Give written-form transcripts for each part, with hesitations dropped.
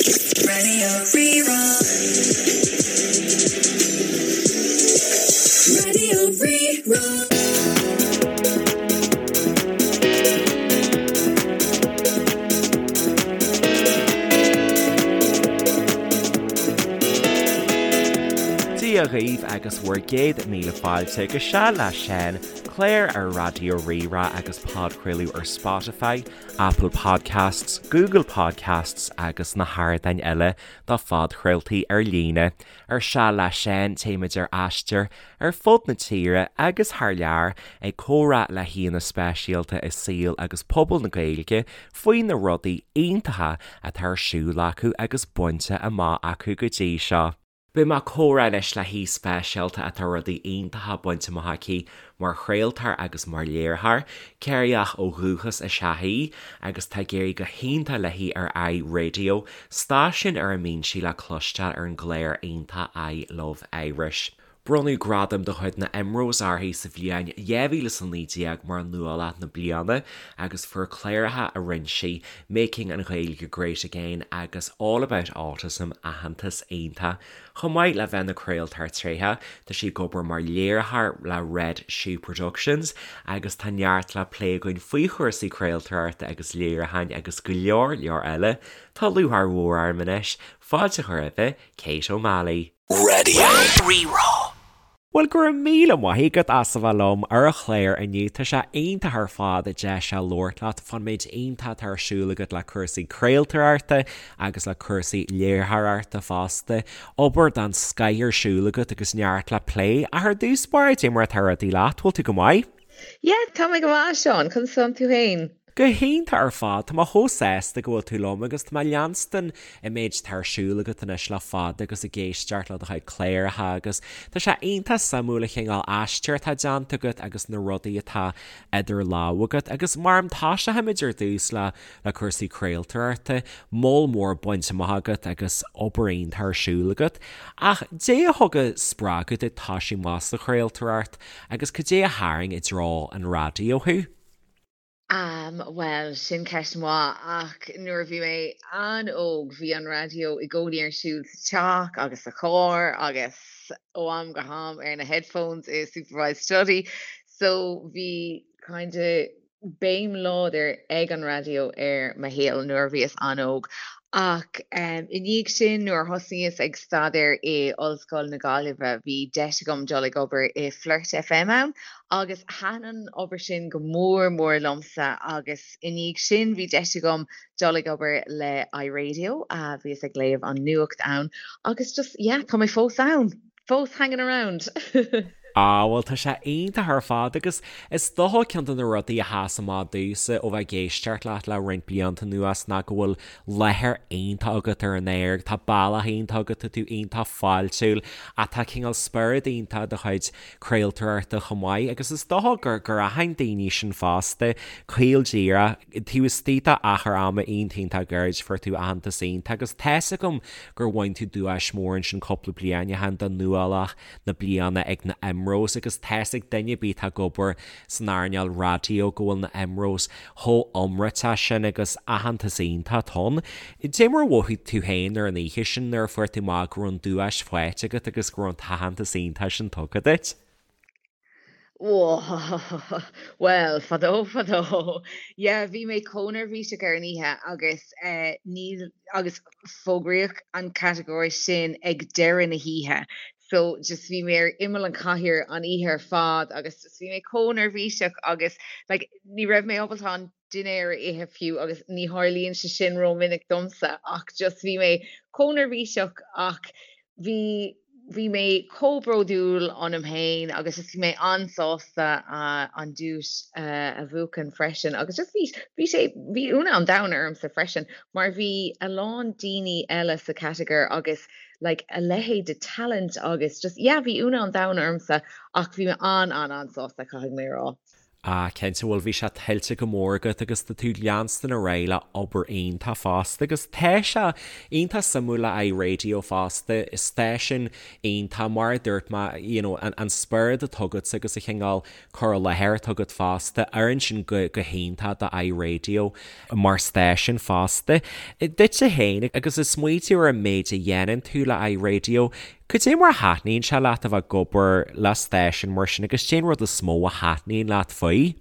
Raidió Rí-Rá. Raidió Rí-Rá. Dia dhaoibh agus bhur gcéad míle fáilte go Seal le Seán, clár ar Raidió Rí-Rá agus podchraoladh ar Spotify, Apple Podcasts, Google Podcasts agus na hardáin eile do phodchraoltaí ar líne. Ar Seal le Seán téimid ar aistear ar fud na tíre agus thar lear ag comhrá le haíonna speisialta i saol agus pobal na Gaeilge faoi na rudaí iontacha atá ar siúl acu agus bainte amach acu go dtí seo. Beidh mé ag comhrá anois le haoi speisialta atá rudaí iontacha bainte amach aici mar chraoltóir agus mar léiritheoir. Ciarraíoch ó dhúchas is ea í agus tá ag éirí go hiontach léi ar iRadio, stáisiún ar a mbíonn sí le cloisteáil ar an gclár iontach I Love Irish. Bronnadh gradam de chuid na IMROs uirthi sa bhliain 2019 mar Nuálach na Bliana agus fuair cláracha a rinne sí, Making an Ghaeilge Great Again agus All About Autism aitheantas iontach. Chomh maith le bheith ina craoltóir tréitheach, tá sí ag obair mar léiritheoir le Red Shoe Productions agus tá neart le plé againn faoi chúrsaí craoltóireachta agus léiriúcháin agus go leor leor eile. Tá lúcháir mhór orm anois fáilte a chur roimh Kate O'Malley. Raidió Rí-Rá. Bhuel, go raibh míle maith agat as a bheith liom ar an chlár inniu. Tá sé iontach ar fad deis a labhairt leat fán méid iontach atá ar siúl agat le cúrsaí craoltóireachta agus le cúrsaí léiritheoireachta fosta. Obair den scoith ar siúl agat agus neart le plé. Ach ar dtús báire, cad é mar atá rudaí leat, bhfuil tú go maith? Yeah, tá mé go maith, a Seáin. Conas tánn tú féin? Go hiontach ar fad, tá mé chomh sásta go bhfuil tú liom agus tá mé ag leanstan an méid atá ar siúl agat anois le fada agus ag éisteacht le do chuid cláracha agus tá sé iontach suimiúil an chineál aistir atá déanta agat agus na rudaí atá idir lámha agat agus mar a toiseochaimid ar dtús le le cúrsaí craoltóireachta, moll mór bainte amach agat agus obair iontach ar siúl agat. Ach cad é a thug an spreagadh duit toisiú amach sa chraoltóireacht agus cad é a tharraing i dtreo an raidió thú? Am, bhuel, sin ceist mhaith, ach nuair a bhí mé an-óg bhí an raidió i gcónaí ar siúl sa teach agus sa charr agus ó am go ham ar na headphones i supervised study so bhí kind of béim láidir ag an raidió ar mo shaol nuair a bhíos an-óg. Ach i ndiaidh sin nuair a thosnaíos ag staidéar i Ollscoil na Gaillimhe bhí deis agam dul ag obair i Flirt FM ann agus thaitin an obair sin go mór mór liomsa agus i ndiaidh sin bhí deis agam dul ag obair le iRadio, bhíos ag léamh an nuacht ann agus just yeah tá mé fós ann, fós hanging around! Ah bhuel tá sé iontach ar fad agus is dócha ceann de na rudaí a sheas amach domhsa ó bheith ag éisteacht leat le roinnt blianta anuas ná go bhfuil láthair iontach agat ar an aer, tá bealach iontach agat, tá tú iontach fáiltiúil ach tá cineál spiorad iontach i do chuid craoltóireachta chomh maith agus is dócha gur gur aithin daoine sin fosta, caol díreach, taobh istigh de achar ama iontach iontach gairid fuair tú aitheantas iontach agus tá's agam gur bhain tú duais mór ansin cúpla bliain ó shin do Nuálach na Bliana ag na IMROs agus tá's ag duine ar bith atá ag obair san earnáil raidió go bhfuil na IMROs chomh iomráiteach sin agus aitheantas iontach ann. Cad é mar a mhothaigh tú féin ar an oíche sin nuair a fuair tú amach go raibh an duais faighte agat agus go raibh an t-aitheantas iontach sin tugtha duit? Bhuel, fadó fadó. Yeah, bhí mé chomh neirbhíseach ar an oíche agus eh, níl agus fógraíodh an catagóir sin ag deireadh na hoíche. So just bhí mé ar imeall an chathaoir an oíche ar fad agus just bhí mé chomh neirbhíseach agus like ní raibh mé ábalta an dinnéar a ithe fiú agus ní tharlaíonn sé sin rómhinic domsa ach just bhí mé chomh neirbhíseach ach bhí bhí mé chomh bródúil ionam féin agus just bhí mé an-sásta an duais a bhuachan freisin agus just bhí bhí sé bhí ionadh an domhain ormsa freisin mar bhí a lán daoine eile sa chatagóir agus like a leithéid de talent agus just yeah bhí ionadh an domhain ormsa ach bhí mé an-an-an-sásta caithfidh mé a rá. Ah, cinnte, bhuel bhí sé tuillte go mór agat agus tá tú ag leanstan ar aghaidh le obair iontach fosta agus tá sé iontach suimiúil le iRadio fosta, stáisiún iontach mar a dúirt mé, you know, an, an spiorad atá agat agus an cineál cur i láthair atá agat fosta, oireann sin go, go hiontach do iRadio mar stáisiún fosta. Duitse féin agus ag smaoitiú ar an méid a dhéanann tú le iRadio, Cad é mar a thaitníonn sé leat a bheith ag obair le stáisiún mar sin agus cén rud is mó a thaitníonn leat faoi?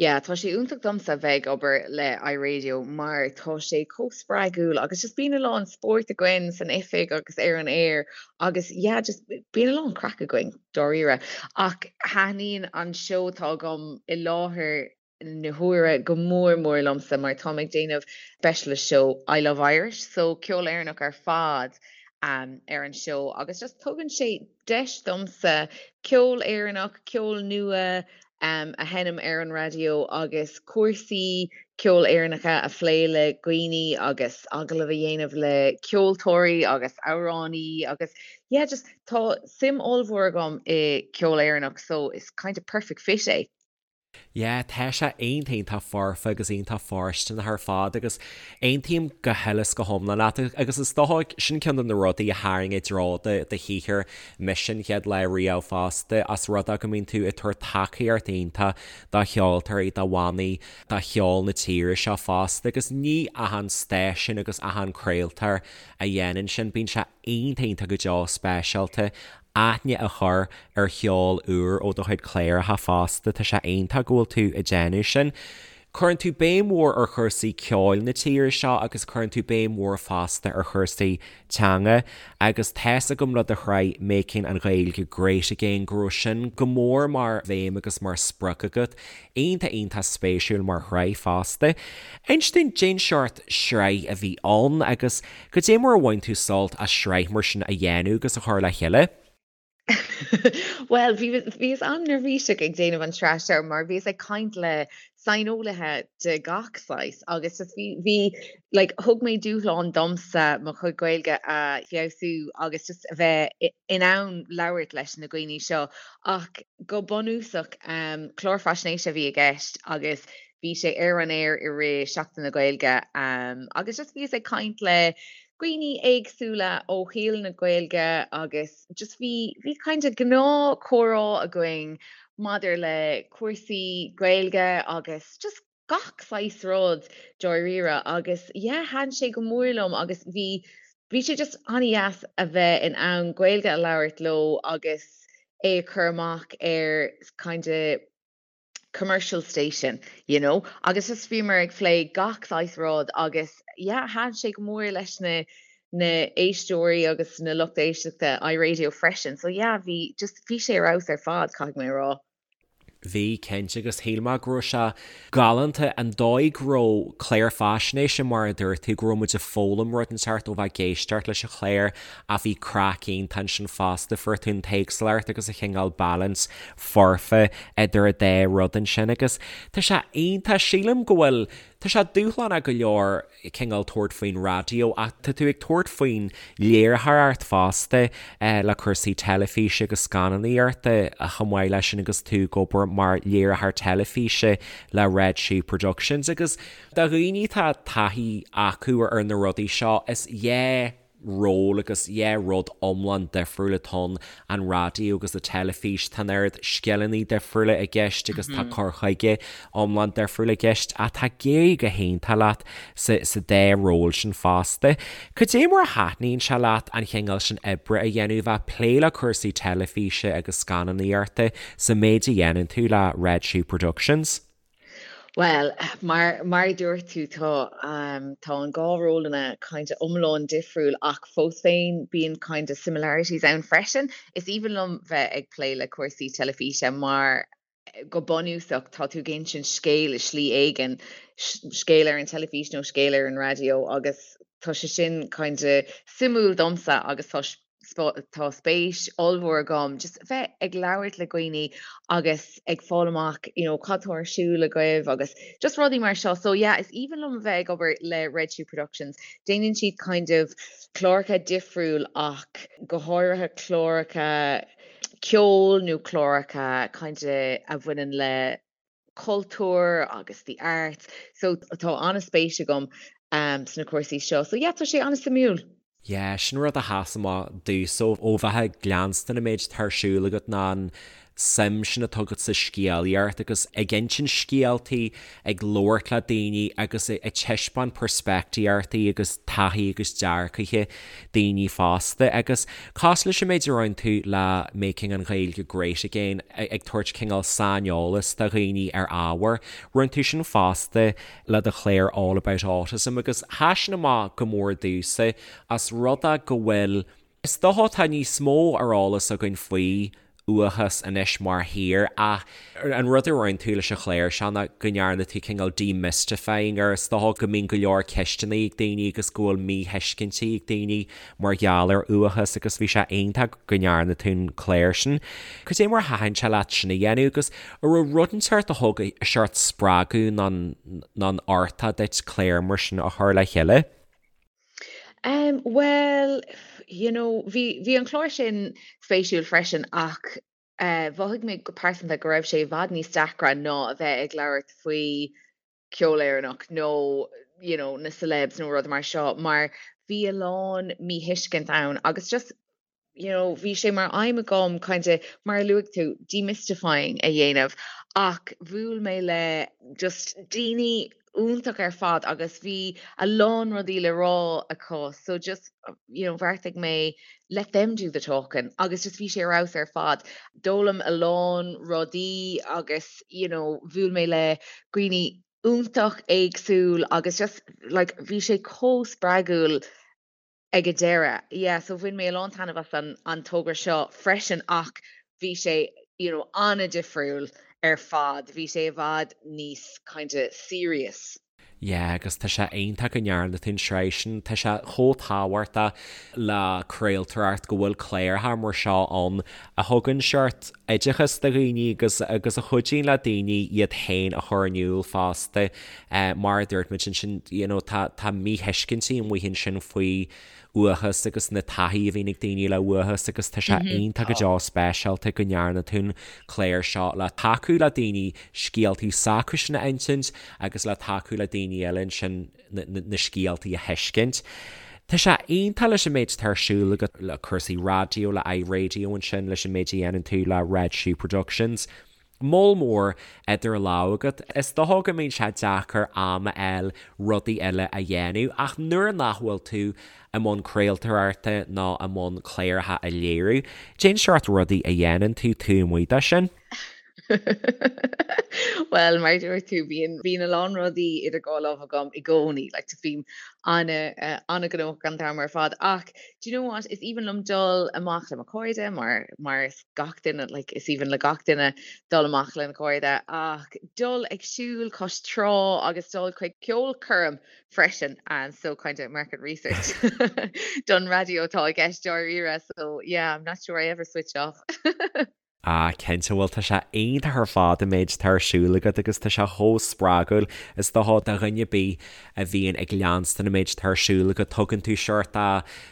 Yeah, tá sé iontach domsa bheith ag obair le iRadio mar tá sé chomh spreagúil agus just bíonn a lán spóirt againn san oifig agus ar an aer agus yeah, just bíonn a lán craic againn, dáiríre. Ach thaitníonn an seó atá agam i láthair na huaire go mór mór liomsa mar táim ag déanamh specialist show I Love Irish so ceol Éireannach ar fad ar an seó agus just tugann sé deis domsa ceol Éireannach, ceol nua a sheinm ar an raidió agus cúrsaí ceoil Éireannacha a phlé le dhaoine agus agallamh a dhéanamh le ceoltóirí agus amhránaí agus yeah just tá suim ollmhór agam i ceol Éireannach so is kind of perfect fit é. Yeah, tá sé iontach iontach foirfe agus iontach fóirsteanach ar fad agus aontaím go huile is go hiomlán leat agus is dócha sin ceann de na rudaí a tharraing i dtreo do do shaothar mise an chéad lá riamh fosta as rud é go mbíonn tú ag tabhairt tacaíocht iontach do cheoltóirí, do bhannaí, do cheol na tíre seo fosta agus ní achan stáisiún agus achan craoltóir a dhéanann sin, bíonn sé iontach iontach go deo speisialta aithne a chur ar cheol úr ó do chuid cláracha fosta, tá sé iontach go bhfuil tú ag déanamh sin. Cuireann tú béim mhór ar chúrsaí ceoil na tíre seo agus cuireann tú béim mhór fosta ar chúrsaí teanga agus tá's agam le do shraith Making an Ghaeilge Great Again go raibh sin go mór mar bhéim agus mar sprioc agat. Iontach iontach spéisiúil mar shraith fosta. Inis dúinn cén seort sraith a bhí ann agus Cad é mar a bhain tú sult as sraith mar sin a dhéanamh agus a chur le chéile? Bhuel, bhí, bhíos an-neirbhíseach ag déanamh an tsraith seo mar bhíos ag caint le saineolaithe de gach saghas agus just bhí, bhí, like, thug mé dúshlán domsa mo chuid Gaeilge a feabhsú agus just a bheith in ann labhairt leis na dhaoine seo ach go bunúsach, clár faisnéise a bhí i gceist agus Bhí sé ar an aer i rith Seachtain na Gaeilge agus just bhíos ag caint le dhaoine éagsúla ó shaol na Gaeilge agus just bhí bhí kind of gnáth comhrá againn maidir le cúrsaí Gaeilge agus just gach saghas rud dáiríre agus yeah thaitin sé go mór liom agus bhí bhí sé just an-dheas a bheith in ann Gaeilge a labhairt leo agus é a chur amach ar kind of commercial station, you know, agus just bhíomar ag plé gach saghas rud agus yeah, thaitin sé go mór leis na na éisteoirí agus na lucht éisteachta iRadio freisin, so yeah, bhí just bhí sé ar fheabhas ar fad, caithfidh mé a rá. Bhí, cinnte, agus shíl mé go raibh sé galánta an dóigh go raibh clár faisnéise mar a dúirt tú, go raibh muid ag foghlaim rud inteacht ó bheith ag éisteacht leis an chlár ach bhí craic iontach ansin fosta, fuair tú an t-éagsúlacht agus an chineál balance foirfe idir an dá rud ansin agus tá sé iontach, sílim go bhfuil, tá sé dúshlánach go leor cineál tabhairt faoin raidió ach tá tú ag tabhairt faoin léiritheoireacht fosta le cúrsaí teilifíse agus scannánaíochta chomh maith leis sin agus tú ag obair mar léiritheoir teilifíse le Red Shoe Productions agus do dhaoine atá taithí acu ar na rudaí seo is yeah ról agus yeah rud iomlán difriúil atá ann, an raidió agus an teilifís, tá an oiread scileanna difriúla i gceist agus tá cur chuige iomlán difriúil i gceist ach tá ag éirí go hiontach leat sa sa dá ról sin fosta. Cad é mar a thaitníonn sé leat an chineál sin oibre a dhéanamh, bheith ag plé le cúrsaí teilifíse agus scannánaíochta sa méid a dhéanann tú le Red Shoe Productions? Bhuel, mar mar a dúirt tú, tá tá an dhá rólanna kind of iomlán difriúil ach fós féin bíonn kind of similarities ann freisin. Is aoibhinn liom bheith ag plé le cúrsaí teilifíse mar go bunúsach tá tú ag insint scéal i slí éigin, scéal ar an teilifís nó scéal ar an raidió agus tá sé sin kind of suimiúil domsa agus tá tá spéis ollmhór agam just bheith ag labhairt le dhaoine agus ag fáil amach you know cad tá ar siúl agaibh agus just rudaí mar seo. So yeah, is aoibhinn liom a bheith ag obair le Red Shoe Productions. Déanann siad kind of cláracha difriúil ach go háirithe cláracha. ceoil nó cláracha kind of a bhaineann le cultúr agus the arts so tá an-spéis agam sna cúrsaí seo so yeah tá sé an-suimiúil. Yeah, sin rud a sheas amach domhsa ó bheith ag leanstan an méid atá ar siúl agat ná an suim sin atá agat sa scéalaíocht agus ag insint scéaltaí, ag labhairt le daoine agus ag taispeáint peirspictíochtaí agus taithí agus dearcaithe daoine fosta. Agus cosúil leis an méid a rinne tú le Making an Ghaeilge Great Again, ag tabhairt cineál saineolas do dhaoine ar ábhar, rinne tú sin fosta le do chlár All About Autism agus sheas sin amach go mór domhsa as rud é go bhfuil, is dócha tá níos mó ar eolas againn faoi uathachas anois mar thír ach an rud a rinne tú leis an chlár seo ná go ndearna tú cineál demystifying air, is dócha go mbíonn go leor ceisteanna ag daoine agus go bhfuil míthuiscintí ag daoine mar gheall ar uathachas agus bhí sé iontach go ndearna tú an clár sin. Cad é mar a thaitin sé leat sin a dhéanamh agus an raibh rud inteacht a thug seort spreagadh nó an uchtach duit clár mar sin a chur le chéile? Um, bhuel, you know, bhí, bhí an clár sin spéisiúil freisin ach eh, mhothaigh mé go pearsanta go raibh sé i bhfad níos deacra ná a bheith ag labhairt faoi ceol Éireannach nó, you know, na celebs nó rud mar seo mar bhí a lán míthuiscint ann agus just you know, bhí sé mar aidhm agam kind of, mar a luaigh tú, demystifying a dhéanamh ach bhuail mé le just daoine iontach ar fad agus bhí a lán rudaí le rá acu so just, you know, bheartaigh mé let them do the talking agus just bhí sé ar fheabhas ar fad. D'fhoghlaim a lán rudaí agus, you know, bhuail mé le dhaoine iontach éagsúil agus just like bhí sé chomh spreagúil ag an deireadh. Yeah, so bhain mé a lán taitneamh as an an togra seo freisin ach bhí sé, you know, an-difriúil ar fad. Bhí sé i bhfad níos kind of serious. Yeah, agus tá sé iontach go ndearna tú an tsraith sin. Tá sé chomh tábhachtach le craoltóireacht go bhfuil cláracha mar seo ann a thugann seort oideachas do dhaoine agus agus a chuidíonn le daoine iad féin a chur in iúl fosta. Mar a dúirt muid ansin, you know, tá, tá míthuiscintí amuigh ansin faoi uathachas agus na taithí a bhíonn ag daoine le uathachas agus tá sé iontach go deo speisialta go ndearna tú an clár seo le tacú le daoine scéaltaí s'acusan a insint agus le tacú le daoine eile ansin na, na, na scéaltaí a thuiscint. Tá sé iontach leis an méid atá ar siúl agat le cúrsaí raidió, le iRadio ansin, leis an méid a dhéanann tú le Red Shoe Productions. Moll mór idir lámha agat. Is dócha go mbíonn sé deacair am a fháil rudaí eile a dhéanamh ach nuair nach bhfuil tú i mbun craoltóireachta nó i mbun cláracha a léiriú, cén seort rudaí a dhéanann tú taobh amuigh de sin. Bhuel, mar a dúirt tú, bíonn, bíonn a lán rudaí idir dhá lámh agam i gcónaí, like, bím an-ghnóthach an t-am ar fad ach do you know what, is aoibhinn liom dul amach le mo chairde mar, mar is gach duine, like, is aoibhinn le gach duine dul amach lena chairde ach dul ag siúl cois trá agus dul chuig ceolchoirm freisin and so kind of market research don raidió atá i gceist dáiríre so yeah I'm not sure I ever switch off. Ah cinnte, bhuel tá sé iontach ar fad an méid atá ar siúl agat agus tá sé chomh spreagúil is dócha do dhuine ar bith a bhíonn ag leanstan an méid atá ar siúl agat, tugann tú seort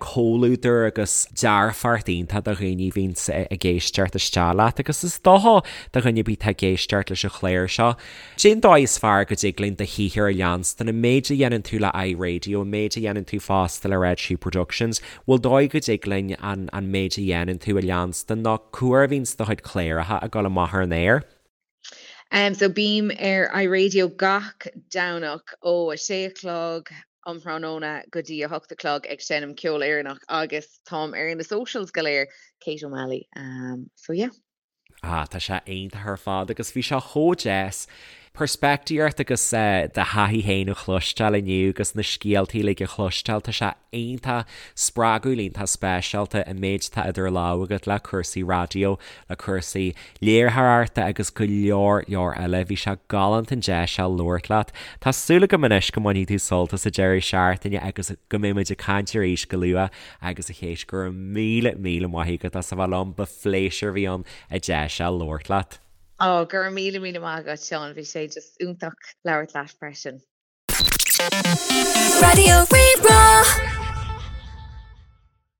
comhluadar agus dearfacht iontach do dhaoine a bhíonns ag éisteacht isteach leat agus is dócha do dhuine ar bith atá ag éisteacht leis an chlár seo. Cén dóigh is fearr go dtig linn do shaothar a leanstan, an méid a dhéanann tú le iRadio, an méid a dhéanann tú fosta le Red Shoe Productions, bhfuil dóigh go dtig linn an an méid a dhéanann tú a leanstan nó cá huair a bhíonns do chuid cláracha ag dul amach ar an aer? Um so bím ar iRadio gach Domhnach ó 6 a chlog um thráthnóna go dtí 8 a chlog ag seinm ceol Éireannach agus táim ar na socials go léir, Kate O'Malley. Um so yeah. Ah tá sé iontach ar fad agus bhí sé chomh deas peirspictíocht agus do thaithí féin a chloisteáil inniu agus na scéaltaí uilig a chloisteáil, tá sé iontach spreagúil, iontach speisialta an méid atá idir lámha agat le cúrsaí raidió, le cúrsaí léiritheoireachta agus go leor leor eile. Bhí sé galánta an deis seo labhairt leat. Tá súil agam anois go mbainfidh tú sult as an deireadh seachtaine agus go mbeidh muid ag caint arís go luath agus a Chéit, go raibh míle míle maith agat as a bheith liom, ba phléisiúr a bhí ann an deis seo labhairt leat. Ó, go raibh míle míle maith agat, Seán. Bhí sé just iontach labhairt leat freisin. Raidió Rí-Rá.